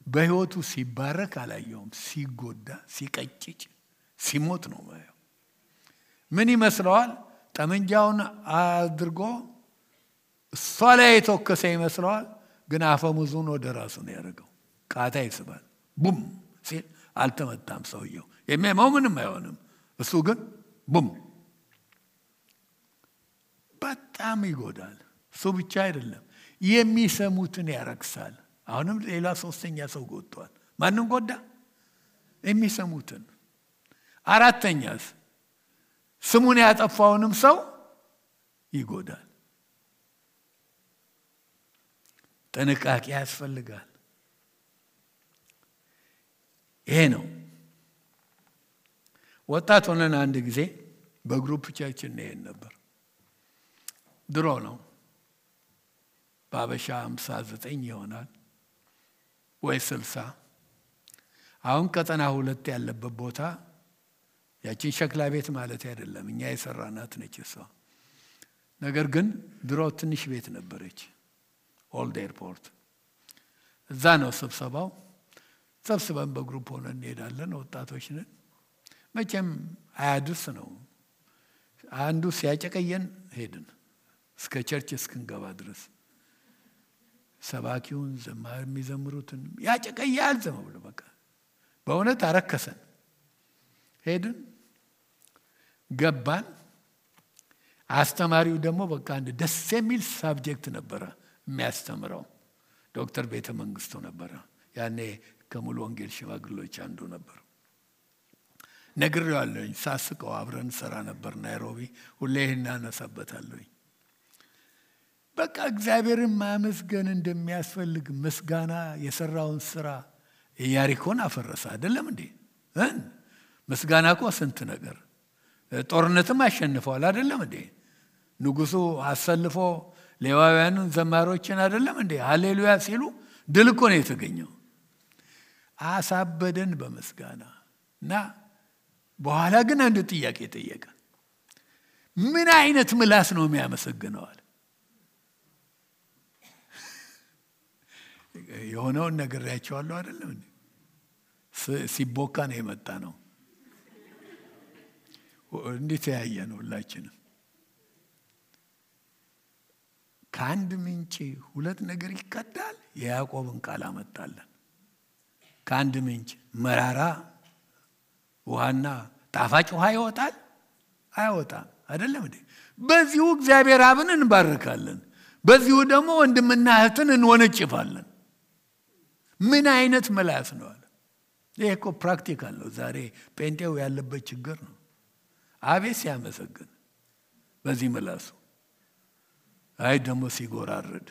በህይወቱ ሲባረክ አላየሁም ሲጎዳ ሲቀጭጭ ሲሞት ነው ማየው ምን ይመስለዋል ጠመንጃውን አድርጎ እሷ ላይ የተወከሰ ይመስለዋል ግን አፈሙዙን ወደ ራሱ ነው ያደረገው ቃታ ይስባል ቡም ሲል አልተመታም ሰውየው የሚያመው ምንም አይሆንም እሱ ግን ቡም በጣም ይጎዳል እሱ ብቻ አይደለም የሚሰሙትን ያረክሳል አሁንም ሌላ ሶስተኛ ሰው ጎድቷል ማንን ጎዳ የሚሰሙትን አራተኛስ ስሙን ያጠፋውንም ሰው ይጎዳል ጥንቃቄ ያስፈልጋል ይሄ ነው ወጣት ሆነን አንድ ጊዜ በግሩፕ ቸርችን ነን ነበር ድሮ ነው ባበሻ 59 ይሆናል ወይ 60 አሁን ቀጠና 2 ያለበት ቦታ ያቺን ሸክላ ቤት ማለት አይደለም እኛ የሰራናት ነች እሷ ነገር ግን ድሮ ትንሽ ቤት ነበረች ኦልድ ኤርፖርት እዛ ነው ስብሰባው ሰብስበን በግሩፕ ሆነን እንሄዳለን ወጣቶች ነን መቼም አያድርስ ነው አንዱ ሲያጨቀየን ሄድን እስከ ቸርች እስክንገባ ድረስ ሰባኪውን ዘማሪ የሚዘምሩትን ያጨቀያል ዝም ብሎ በቃ በእውነት አረከሰን። ሄድን ገባን። አስተማሪው ደግሞ በቃ አንድ ደስ የሚል ሳብጀክት ነበረ የሚያስተምረው። ዶክተር ቤተ መንግስቱ ነበረ። ያኔ ከሙሉ ወንጌል ሽማግሌዎች አንዱ ነበር። ነግሬዋለሁኝ። ሳስቀው አብረን ሰራ ነበር ናይሮቢ። ሁሌ እናነሳበታለሁኝ። በቃ እግዚአብሔርን ማመስገን እንደሚያስፈልግ ምስጋና የሰራውን ስራ ኢያሪኮን አፈረሰ አይደለም እንዴ? ምስጋና እኮ ስንት ነገር ጦርነትም አሸንፈዋል አይደለም እንዴ? ንጉሱ አሰልፎ ሌዋውያኑን ዘማሮችን አይደለም እንዴ ሃሌሉያ ሲሉ ድል እኮ ነው የተገኘው። አሳበደን በምስጋና እና በኋላ ግን አንድ ጥያቄ ጠየቀ። ምን አይነት ምላስ ነው የሚያመሰግነዋል? የሆነውን ነግሬያቸዋለሁ አይደለም እንዴ? ሲቦካ ነው የመጣ ነው። እንዴት ያያየን ሁላችንም። ከአንድ ምንጭ ሁለት ነገር ይቀዳል። የያዕቆብን ቃል አመጣለን። ከአንድ ምንጭ መራራ ውሃና ጣፋጭ ውሃ ይወጣል አይወጣም አይደለም እንዴ? በዚሁ እግዚአብሔር አብን እንባርካለን። በዚሁ ደግሞ ወንድምና እህትን እንወነጭፋለን። ምን አይነት ምላስ ነው አለ። ይሄ እኮ ፕራክቲካል ነው። ዛሬ ጴንጤው ያለበት ችግር ነው። አቤት ሲያመሰግን በዚህ ምላሱ፣ አይ ደግሞ ሲጎራርድ።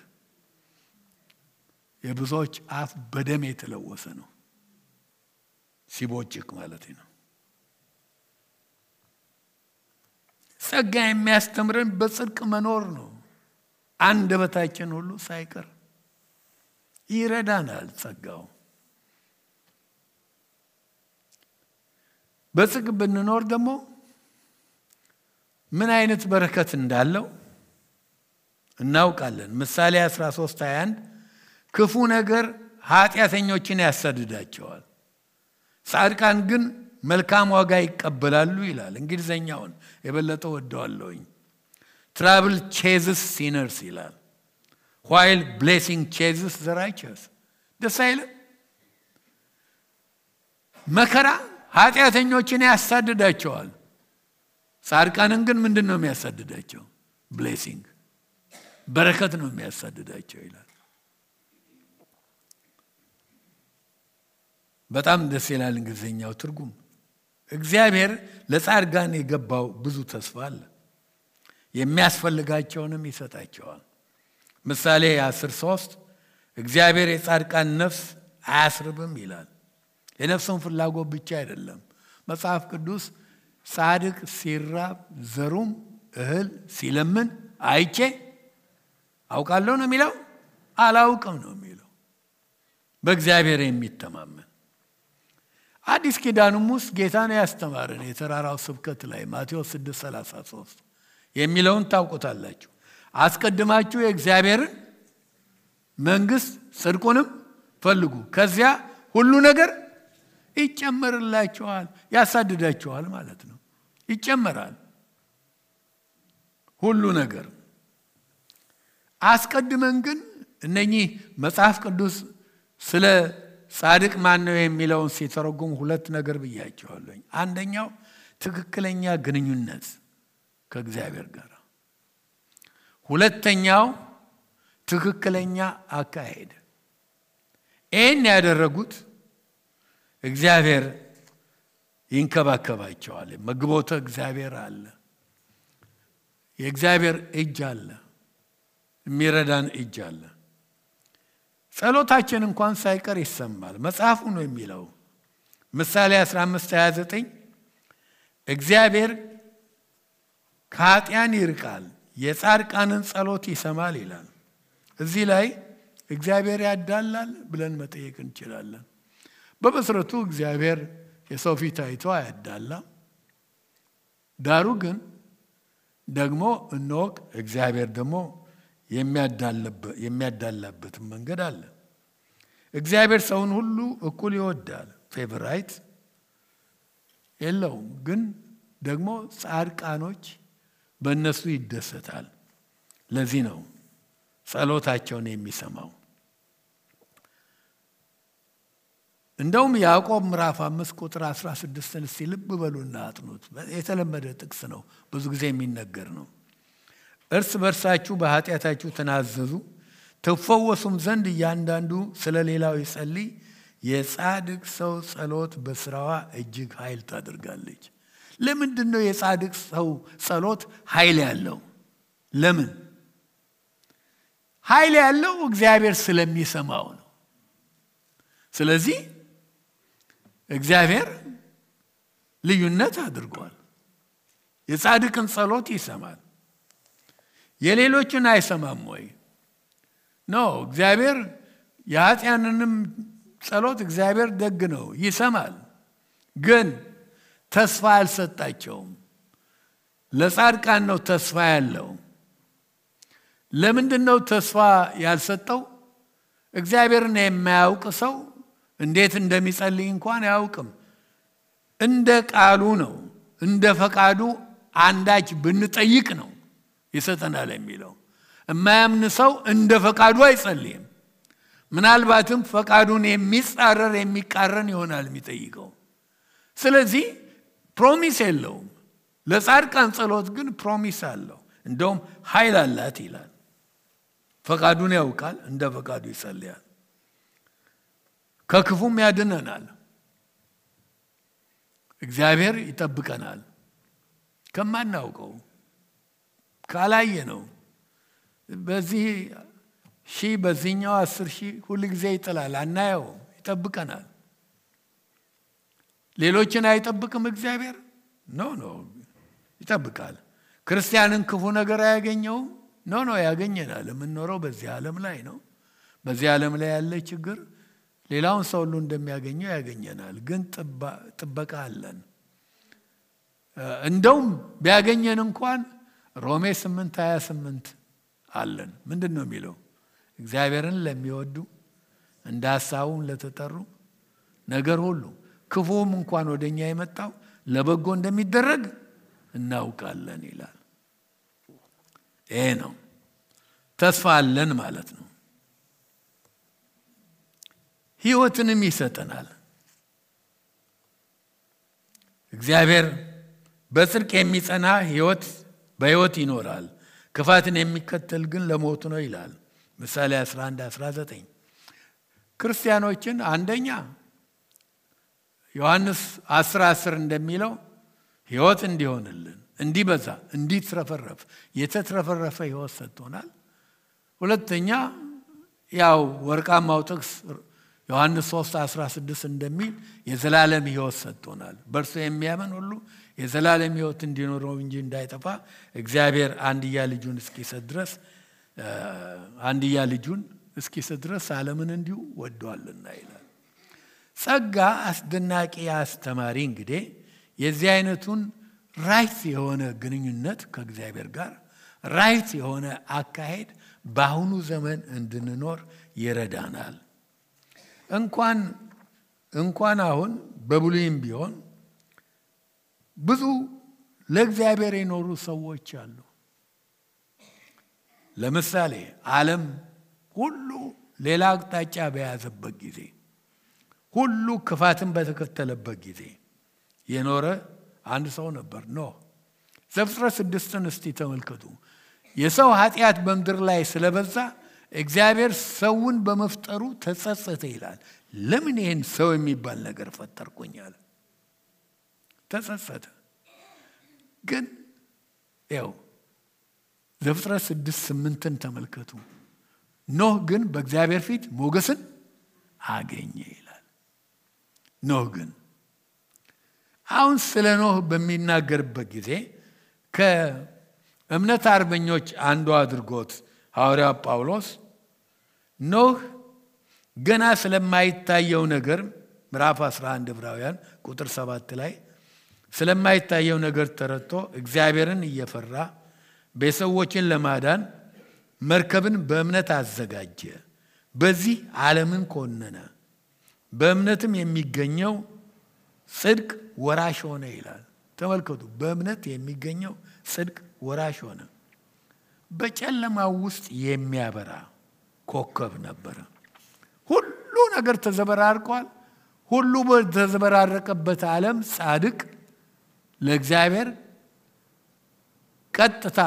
የብዙዎች አፍ በደም የተለወሰ ነው። ሲቦጭቅ ማለት ነው። ጸጋ የሚያስተምረን በጽድቅ መኖር ነው። አንደበታችን ሁሉ ሳይቀር ይረዳናል ጸጋው። በጽድቅ ብንኖር ደግሞ ምን አይነት በረከት እንዳለው እናውቃለን። ምሳሌ 13:21 ክፉ ነገር ኃጢአተኞችን ያሳድዳቸዋል፣ ጻድቃን ግን መልካም ዋጋ ይቀበላሉ ይላል። እንግሊዘኛውን የበለጠ ወደዋለሁኝ። trouble chases sinners ይላል፣ while blessing chases the righteous። ደስ አይልም? መከራ ኃጢአተኞችን ያሳድዳቸዋል፣ ጻድቃንን ግን ምንድነው የሚያሳድዳቸው? ብሌሲንግ በረከት ነው የሚያሳድዳቸው ይላል። በጣም ደስ ይላል እንግሊዘኛው ትርጉም። እግዚአብሔር ለጻድቃን የገባው ብዙ ተስፋ አለ። የሚያስፈልጋቸውንም ይሰጣቸዋል። ምሳሌ 10:3 እግዚአብሔር የጻድቃን ነፍስ አያስርብም ይላል። የነፍሱን ፍላጎት ብቻ አይደለም። መጽሐፍ ቅዱስ ጻድቅ ሲራብ ዘሩም እህል ሲለምን አይቼ አውቃለሁ ነው የሚለው? አላውቅም ነው የሚለው። በእግዚአብሔር የሚተማመን አዲስ ኪዳንም ውስጥ ጌታን ያስተማረን የተራራው ስብከት ላይ ማቴዎስ 6:33 የሚለውን ታውቁታላችሁ። አስቀድማችሁ የእግዚአብሔርን መንግስት ጽድቁንም ፈልጉ፣ ከዚያ ሁሉ ነገር ይጨመርላችኋል። ያሳድዳችኋል ማለት ነው። ይጨመራል ሁሉ ነገር። አስቀድመን ግን እነኚህ መጽሐፍ ቅዱስ ስለ ጻድቅ ማን ነው የሚለውን ሲተረጉም ሁለት ነገር ብያቸዋለሁ። አንደኛው ትክክለኛ ግንኙነት ከእግዚአብሔር ጋር፣ ሁለተኛው ትክክለኛ አካሄድ። ይህን ያደረጉት እግዚአብሔር ይንከባከባቸዋል። መግቦተ እግዚአብሔር አለ፣ የእግዚአብሔር እጅ አለ፣ የሚረዳን እጅ አለ። ጸሎታችን እንኳን ሳይቀር ይሰማል። መጽሐፉ ነው የሚለው ምሳሌ 15:29 እግዚአብሔር ከኃጢአን ይርቃል፣ የጻድቃንን ጸሎት ይሰማል ይላል። እዚህ ላይ እግዚአብሔር ያዳላል ብለን መጠየቅ እንችላለን። በመሰረቱ እግዚአብሔር የሰው ፊት አይቶ አያዳላም። ዳሩ ግን ደግሞ እንወቅ፣ እግዚአብሔር ደግሞ የሚያዳላበት መንገድ አለ። እግዚአብሔር ሰውን ሁሉ እኩል ይወዳል፣ ፌቨራይት የለውም። ግን ደግሞ ጻድቃኖች በእነሱ ይደሰታል። ለዚህ ነው ጸሎታቸውን የሚሰማው። እንደውም ያዕቆብ ምዕራፍ 5 ቁጥር 16ን እስቲ ልብ በሉና አጥኑት። የተለመደ ጥቅስ ነው፣ ብዙ ጊዜ የሚነገር ነው። እርስ በርሳችሁ በኃጢአታችሁ ተናዘዙ ትፈወሱም ዘንድ እያንዳንዱ ስለ ሌላው ይጸልይ። የጻድቅ ሰው ጸሎት በስራዋ እጅግ ኃይል ታደርጋለች። ለምንድን ነው የጻድቅ ሰው ጸሎት ኃይል ያለው? ለምን ኃይል ያለው? እግዚአብሔር ስለሚሰማው ነው። ስለዚህ እግዚአብሔር ልዩነት አድርጓል። የጻድቅን ጸሎት ይሰማል፣ የሌሎችን አይሰማም ወይ? ነው እግዚአብሔር የኃጢአንንም ጸሎት እግዚአብሔር ደግ ነው፣ ይሰማል። ግን ተስፋ አልሰጣቸውም። ለጻድቃን ነው ተስፋ ያለው። ለምንድን ነው ተስፋ ያልሰጠው? እግዚአብሔርን የማያውቅ ሰው እንዴት እንደሚጸልይ እንኳን አያውቅም። እንደ ቃሉ ነው፣ እንደ ፈቃዱ አንዳች ብንጠይቅ ነው ይሰጠናል የሚለው። የማያምን ሰው እንደ ፈቃዱ አይጸልይም። ምናልባትም ፈቃዱን የሚጻረር የሚቃረን ይሆናል የሚጠይቀው። ስለዚህ ፕሮሚስ የለውም። ለጻድቃን ጸሎት ግን ፕሮሚስ አለው። እንደውም ኃይል አላት ይላል። ፈቃዱን ያውቃል፣ እንደ ፈቃዱ ይጸልያል። ከክፉም ያድነናል። እግዚአብሔር ይጠብቀናል ከማናውቀው ካላየ ነው። በዚህ ሺህ በዚህኛው 10,000 ሁሉ ጊዜ ይጥላል፣ አናየው። ይጠብቀናል። ሌሎችን አይጠብቅም እግዚአብሔር? ኖ ይጠብቃል። ክርስቲያንን ክፉ ነገር አያገኘውም? ኖ ያገኘናል። የምንኖረው በዚህ ዓለም ላይ ነው። በዚህ ዓለም ላይ ያለ ችግር ሌላውን ሰው ሁሉ እንደሚያገኘው ያገኘናል። ግን ጥበቃ አለን። እንደውም ቢያገኘን እንኳን ሮሜ 8:28 አለን። ምንድን ነው የሚለው? እግዚአብሔርን ለሚወዱ እንደ ሐሳቡም ለተጠሩ ነገር ሁሉ ክፉም እንኳን ወደኛ የመጣው ለበጎ እንደሚደረግ እናውቃለን ይላል። ይሄ ነው ተስፋ አለን ማለት ነው። ሕይወትንም ይሰጠናል። እግዚአብሔር በጽድቅ የሚጸና በሕይወት ይኖራል፣ ክፋትን የሚከተል ግን ለሞት ነው ይላል ምሳሌ 11:19። ክርስቲያኖችን አንደኛ ዮሐንስ 10:10 እንደሚለው ሕይወት እንዲሆንልን፣ እንዲበዛ፣ እንዲትረፈረፍ የተትረፈረፈ ሕይወት ሰጥቶናል። ሁለተኛ ያው ወርቃማው ጥቅስ ዮሐንስ 3:16 እንደሚል የዘላለም ሕይወት ሰጥቶናል። በእርሱ የሚያምን ሁሉ የዘላለም ሕይወት እንዲኖረው እንጂ እንዳይጠፋ እግዚአብሔር አንድያ ልጁን እስኪሰጥ ድረስ ዓለምን እንዲሁ ወዷልና ይላል። ጸጋ አስደናቂ አስተማሪ። እንግዲህ የዚህ አይነቱን ራይት የሆነ ግንኙነት ከእግዚአብሔር ጋር ራይት የሆነ አካሄድ በአሁኑ ዘመን እንድንኖር ይረዳናል። እንኳን አሁን በብሉይም ቢሆን ብዙ ለእግዚአብሔር የኖሩ ሰዎች አሉ። ለምሳሌ ዓለም ሁሉ ሌላ አቅጣጫ በያዘበት ጊዜ፣ ሁሉ ክፋትን በተከተለበት ጊዜ የኖረ አንድ ሰው ነበር፣ ኖህ። ዘፍጥረት 6ን እስቲ ተመልከቱ። የሰው ኃጢአት በምድር ላይ ስለበዛ እግዚአብሔር ሰውን በመፍጠሩ ተጸጸተ ይላል። ለምን ይሄን ሰው የሚባል ነገር ፈጠርኩኝ አለ። ተጸጸተ። ግን ያው ዘፍጥረት 6:8ን ተመልከቱ። ኖህ ግን በእግዚአብሔር ፊት ሞገስን አገኘ ይላል። ኖህ ግን አሁን ስለ ኖህ በሚናገርበት ጊዜ ከእምነት አርበኞች አንዱ አድርጎት ሐዋርያው ጳውሎስ ኖህ ገና ስለማይታየው ነገር ምዕራፍ 11 ዕብራውያን ቁጥር 7 ላይ ስለማይታየው ነገር ተረድቶ እግዚአብሔርን እየፈራ ቤተሰቦችን ለማዳን መርከብን በእምነት አዘጋጀ፣ በዚህ ዓለምን ኮነነ፣ በእምነትም የሚገኘው ጽድቅ ወራሽ ሆነ ይላል። ተመልከቱ፣ በእምነት የሚገኘው ጽድቅ ወራሽ ሆነ። በጨለማው ውስጥ የሚያበራ ኮከብ ነበረ። ሁሉ ነገር ተዘበራርቋል። ሁሉ በተዘበራረቀበት ዓለም ጻድቅ ለእግዚአብሔር ቀጥታ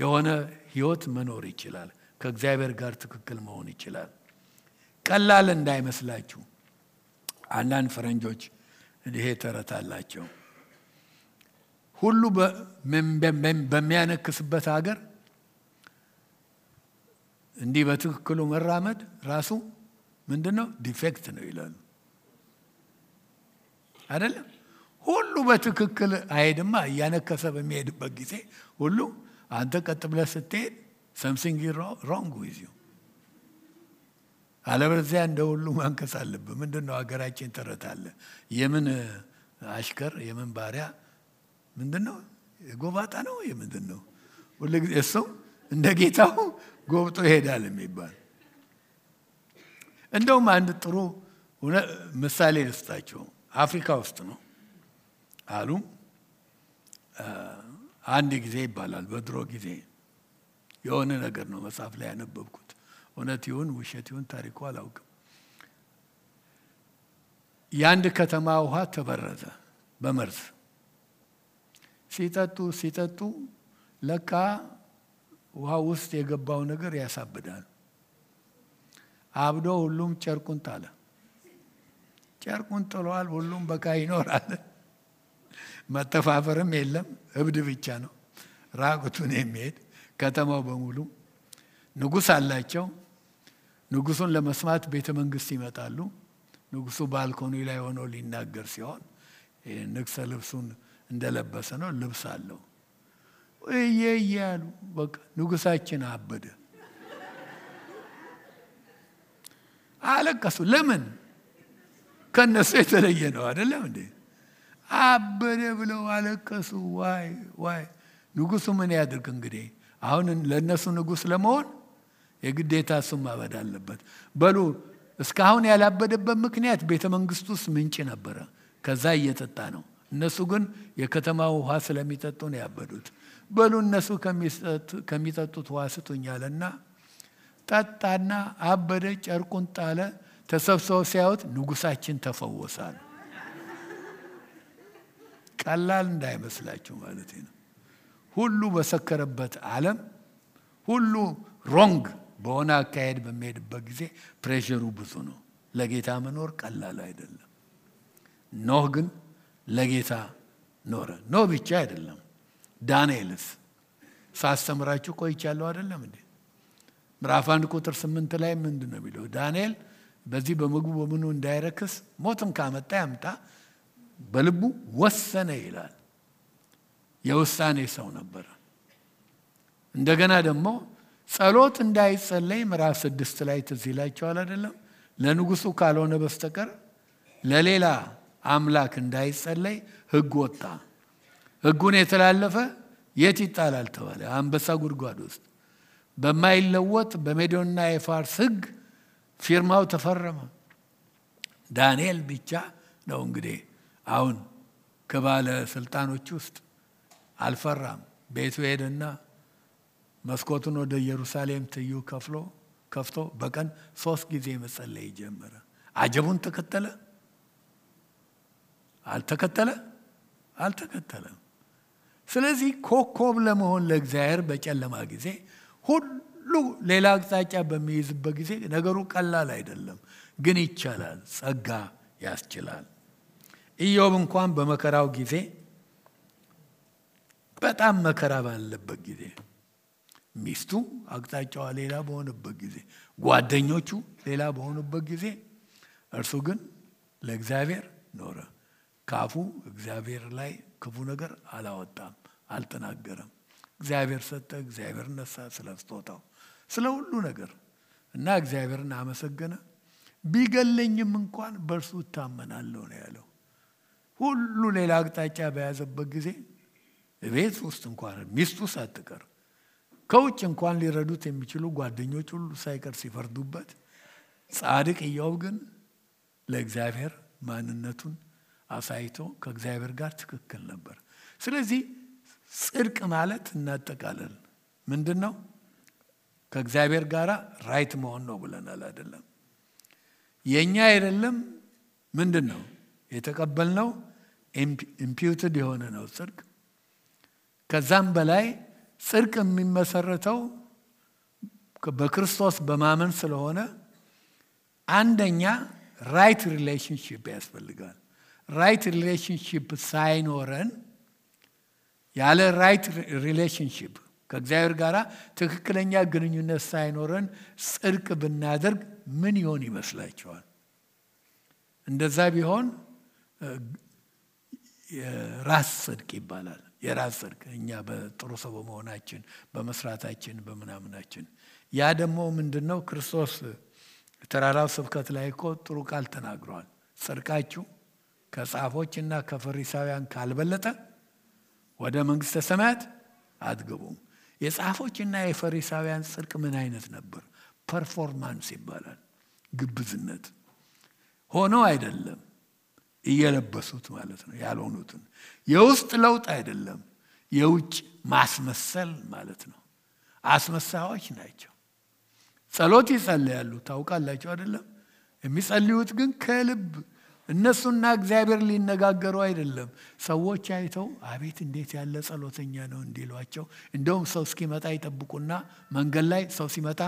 የሆነ ህይወት መኖር ይችላል። ከእግዚአብሔር ጋር ትክክል መሆን ይችላል። ቀላል እንዳይመስላችሁ። አንዳንድ ፈረንጆች ይሄ ተረት አላቸው። ሁሉ በሚያነክስበት ሀገር እንዲህ በትክክሉ መራመድ ራሱ ምንድነው? ዲፌክት ነው ይላሉ አይደለም? ሁሉ በትክክል አይሄድማ። እያነከሰ በሚሄድበት ጊዜ ሁሉ አንተ ቀጥ ብለህ ስትሄድ something is wrong with you። አለበለዚያ እንደ ሁሉ ማንከስ አለብህ። ምንድነው ሀገራችን ተረት አለ። የምን አሽከር የምን ባሪያ ምንድነው? ጎባጣ ነው የምንድነው? ሁሉ እሱ እንደ ጌታው ጎብጦ ይሄዳል የሚባል። እንደውም አንድ ጥሩ ምሳሌ ልስጣችሁ። አፍሪካ ውስጥ ነው አሉ። አንድ ጊዜ ይባላል በድሮ ጊዜ የሆነ ነገር ነው መጽሐፍ ላይ ያነበብኩት። እውነት ይሁን ውሸት ይሁን ታሪኩ አላውቅም። የአንድ ከተማ ውሃ ተበረዘ በመርዝ። ሲጠጡ ለካ ውሃ ውስጥ የገባው ነገር ያሳብዳል። አብዶ ሁሉም ጨርቁን ጣለ። ጨርቁን ጥሏል። ሁሉም በቃ ይኖራል። መተፋፈርም የለም። እብድ ብቻ ነው ራቁቱን የሚሄድ። ከተማው በሙሉ ንጉስ አላቸው። ንጉሱን ለመስማት ቤተ መንግስት ይመጣሉ። ንጉሱ ባልኮኒ ላይ ሆኖ ሊናገር ሲሆን ንግሥ ልብሱን እንደለበሰ ነው። ልብስ አለው። እየያሉ በቃ ንጉሳችን አበደ። አለቀሱ። ለምን? ከነሱ የተለየ ነው አይደለም እንዴ? አበደ ብለው አለቀሱ። ዋይ ንጉሱ ምን ያድርግ እንግዲህ? አሁን ለነሱ ንጉስ ለመሆን የግዴታ እሱም ማበድ አለበት። በሉ እስካሁን ያላበደበት ምክንያት ቤተ መንግስት ውስጥ ምንጭ ነበረ። ከዛ እየጠጣ ነው። እነሱ ግን የከተማው ውሃ ስለሚጠጡ ነው ያበዱት። በሉ እነሱ ከሚጠጡት ውሃ ስጡኛልና ጠጣና አበደ። ጨርቁን ጣለ። ተሰብስበው ሲያዩት ንጉሳችን ተፈወሳል። ቀላል እንዳይመስላችሁ ማለት ነው። ሁሉ በሰከረበት ዓለም ሁሉ ሮንግ በሆነ አካሄድ በሚሄድበት ጊዜ ፕሬሸሩ ብዙ ነው። ለጌታ መኖር ቀላል አይደለም። ኖህ ግን ለጌታ ኖረ። ኖህ ብቻ አይደለም። ዳንኤልስ ሳስተምራችሁ ቆይቻለሁ አይደለም እንዴ? ምዕራፍ 1 ቁጥር 8 ላይ ምንድነው የሚለው? ዳንኤል በዚህ በምግቡ በምኑ እንዳይረክስ ሞትም ካመጣ ያምጣ በልቡ ወሰነ ይላል። የውሳኔ ሰው ነበር። እንደገና ደግሞ ጸሎት እንዳይጸለይ ምዕራፍ 6 ላይ ትዝ ይላችኋል አይደለም? ለንጉሱ ካልሆነ በስተቀር ለሌላ አምላክ እንዳይጸለይ ሕግ ወጣ። ሕጉን የተላለፈ የት ይጣላል ተባለ? አንበሳ ጉድጓድ ውስጥ። በማይለወጥ በሜዶንና የፋርስ ሕግ ፊርማው ተፈረመ። ዳንኤል ብቻ ነው እንግዲህ አሁን ከባለ ስልጣኖች ውስጥ አልፈራም። ቤቱ ሄደና መስኮቱን ወደ ኢየሩሳሌም ትዩ ከፍቶ በቀን 3 ጊዜ መጸለይ ጀመረ። አጀቡን ተከተለ? አልተከተለም። ስለዚህ ኮከብ ለመሆን ለእግዚአብሔር በጨለማ ጊዜ ሁሉ ሌላ አቅጣጫ በሚይዝበት ጊዜ ነገሩ ቀላል አይደለም፣ ግን ይቻላል። ጸጋ ያስችላል። ኢዮብ እንኳን በመከራው ጊዜ በጣም መከራ ባለበት ጊዜ ሚስቱ አቅጣጫዋ ሌላ በሆነበት ጊዜ ጓደኞቹ ሌላ በሆኑበት ጊዜ እርሱ ግን ለእግዚአብሔር ኖረ። ካፉ እግዚአብሔር ላይ ክፉ ነገር አላወጣም፣ አልተናገረም። እግዚአብሔር ሰጠ፣ እግዚአብሔር ነሳ፣ ስለስጦታው ስለ ሁሉ ነገር እና እግዚአብሔርን አመሰገነ። ቢገለኝም እንኳን በእርሱ እታመናለሁ ነው ያለው። ሁሉ ሌላ አቅጣጫ በያዘበት ጊዜ ቤት ውስጥ እንኳን ሚስቱ ሳትቀር ከውጭ እንኳን ሊረዱት የሚችሉ ጓደኞች ሁሉ ሳይቀር ሲፈርዱበት፣ ጻድቅ ኢዮብ ግን ለእግዚአብሔር ማንነቱን አሳይቶ ከእግዚአብሔር ጋር ትክክል ነበር። ስለዚህ ጽድቅ ማለት እናጠቃለል ምንድነው? ከእግዚአብሔር ጋር ራይት መሆን ነው ብለናል አይደለም? የኛ አይደለም ምንድነው የተቀበልነው? ኢምፒውትድ የሆነ ነው ጽድቅ። ከዛም በላይ ጽድቅ የሚመሰረተው በክርስቶስ በማመን ስለሆነ አንደኛ ራይት ሪሌሽንሺፕ ያስፈልጋል። ራይት ሪሌሽንሺፕ ሳይኖረን ያለ ራይት ሪሌሽንሺፕ ከእግዚአብሔር ጋር ትክክለኛ ግንኙነት ሳይኖረን ጽድቅ ብናደርግ ምን ይሆን ይመስላችኋል? እንደዛ ቢሆን የራስ ጽድቅ ይባላል። የራስ ጽድቅ እኛ በጥሩ ሰው በመሆናችን በመስራታችን በመናምናችን። ያ ደግሞ ምንድነው? ክርስቶስ ተራራው ስብከት ላይ እኮ ጥሩ ቃል ተናግሯል። ጽድቃችሁ ከጻፎችና ከፈሪሳውያን ካልበለጠ ወደ መንግስተ ሰማያት አትገቡም። የጻፎችና የፈሪሳውያን ጽድቅ ምን አይነት ነበር? ፐርፎርማንስ ይባላል። ግብዝነት ሆኖ አይደለም እየለበሱት ማለት ነው ያልሆኑትን። የውስጥ ለውጥ አይደለም፣ የውጭ ማስመሰል ማለት ነው። አስመሳዮች ናቸው። ጸሎት ይጸልያሉ ታውቃላችሁ አይደለም? የሚጸልዩት ግን ከልብ እነሱና እግዚአብሔር ሊነጋገሩ አይደለም። ሰዎች አይተው አቤት እንዴት ያለ ጸሎተኛ ነው እንዲሏቸው። እንደውም ሰው እስኪመጣ ይጠብቁና መንገድ ላይ ሰው ሲመጣ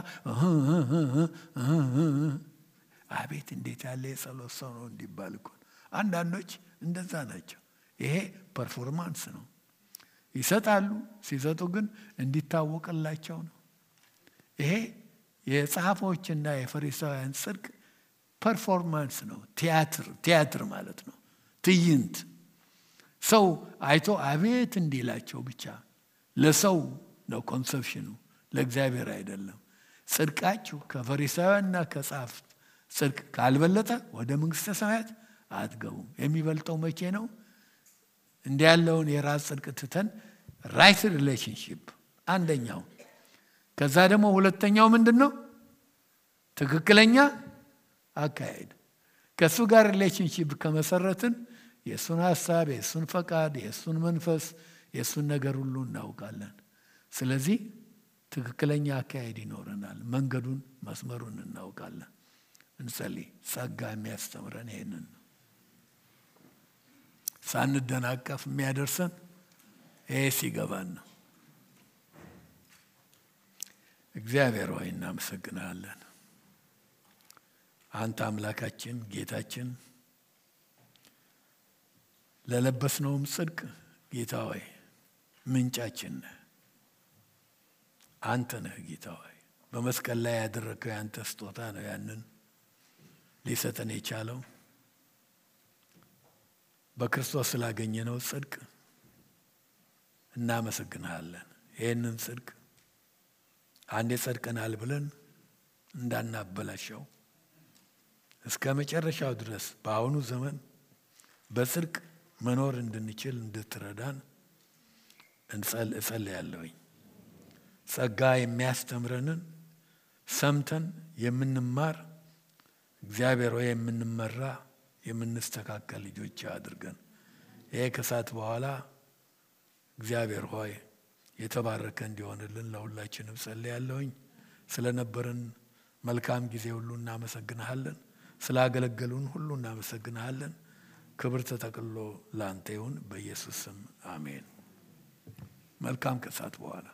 አቤት እንዴት ያለ የጸሎት ሰው ነው እንዲባል እኮ። አንዳንዶች እንደዛ ናቸው። ይሄ ፐርፎርማንስ ነው። ይሰጣሉ፣ ሲሰጡ ግን እንዲታወቅላቸው ነው። ይሄ የጻፎችና የፈሪሳውያን ጽድቅ ፐርፎርማንስ ነው። ቲያትር ማለት ነው። ትዕይንት ሰው አይቶ አቤት እንዲላቸው ብቻ ለሰው ነው ኮንሰፕሽኑ፣ ለእግዚአብሔር አይደለም። ጽድቃችሁ ከፈሪሳውያንና ከጻፍት ጽድቅ ካልበለጠ ወደ መንግስተ ሰማያት አትገቡም። የሚበልጠው መቼ ነው? እንዲህ ያለውን የራስ ጽድቅ ትተን ራይት ሪሌሽንሺፕ አንደኛው። ከዛ ደግሞ ሁለተኛው ምንድነው? ትክክለኛ አካሄድ። ከሱ ጋር ሪሌሽንሺፕ ከመሰረትን የሱን ሐሳብ፣ የሱን ፈቃድ፣ የሱን መንፈስ፣ የሱን ነገር ሁሉ እናውቃለን። ስለዚህ ትክክለኛ አካሄድ ይኖረናል። መንገዱን መስመሩን እናውቃለን። እንጸልይ። ጸጋ የሚያስተምረን ይሄንን ነው። ሳንደናቀፍ የሚያደርሰን ይሄ ሲገባን ነው። እግዚአብሔር ሆይ እናመሰግናለን። አንተ አምላካችን ጌታችን ለለበስነውም ጽድቅ ጌታ ሆይ ምንጫችን ነህ። አንተ ነህ ጌታ ሆይ። በመስቀል ላይ ያደረከው ያንተ ስጦታ ነው ያንን ሊሰጠን የቻለው። በክርስቶስ ስላገኘነው ጽድቅ እናመሰግናለን። ይሄንን ጽድቅ አንዴ ጸድቀናል ብለን እንዳናበላሸው እስከ መጨረሻው ድረስ በአሁኑ ዘመን በጽድቅ መኖር እንድንችል እንድትረዳን እጸልያለሁኝ። ጸጋ የሚያስተምረንን ሰምተን የምንማር እግዚአብሔር ሆይ የምንመራ የምንስተካከል ልጆች አድርገን። ይሄ ከሰዓት በኋላ እግዚአብሔር ሆይ የተባረከ እንዲሆንልን ለሁላችንም ጸልያለሁኝ። ስለነበረን መልካም ጊዜ ሁሉ እናመሰግንሃለን። ስላገለገሉን ሁሉ እናመሰግንሃለን። ክብር ተጠቅልሎ ላንተ ይሁን በኢየሱስ ስም አሜን። መልካም ከሰዓት በኋላ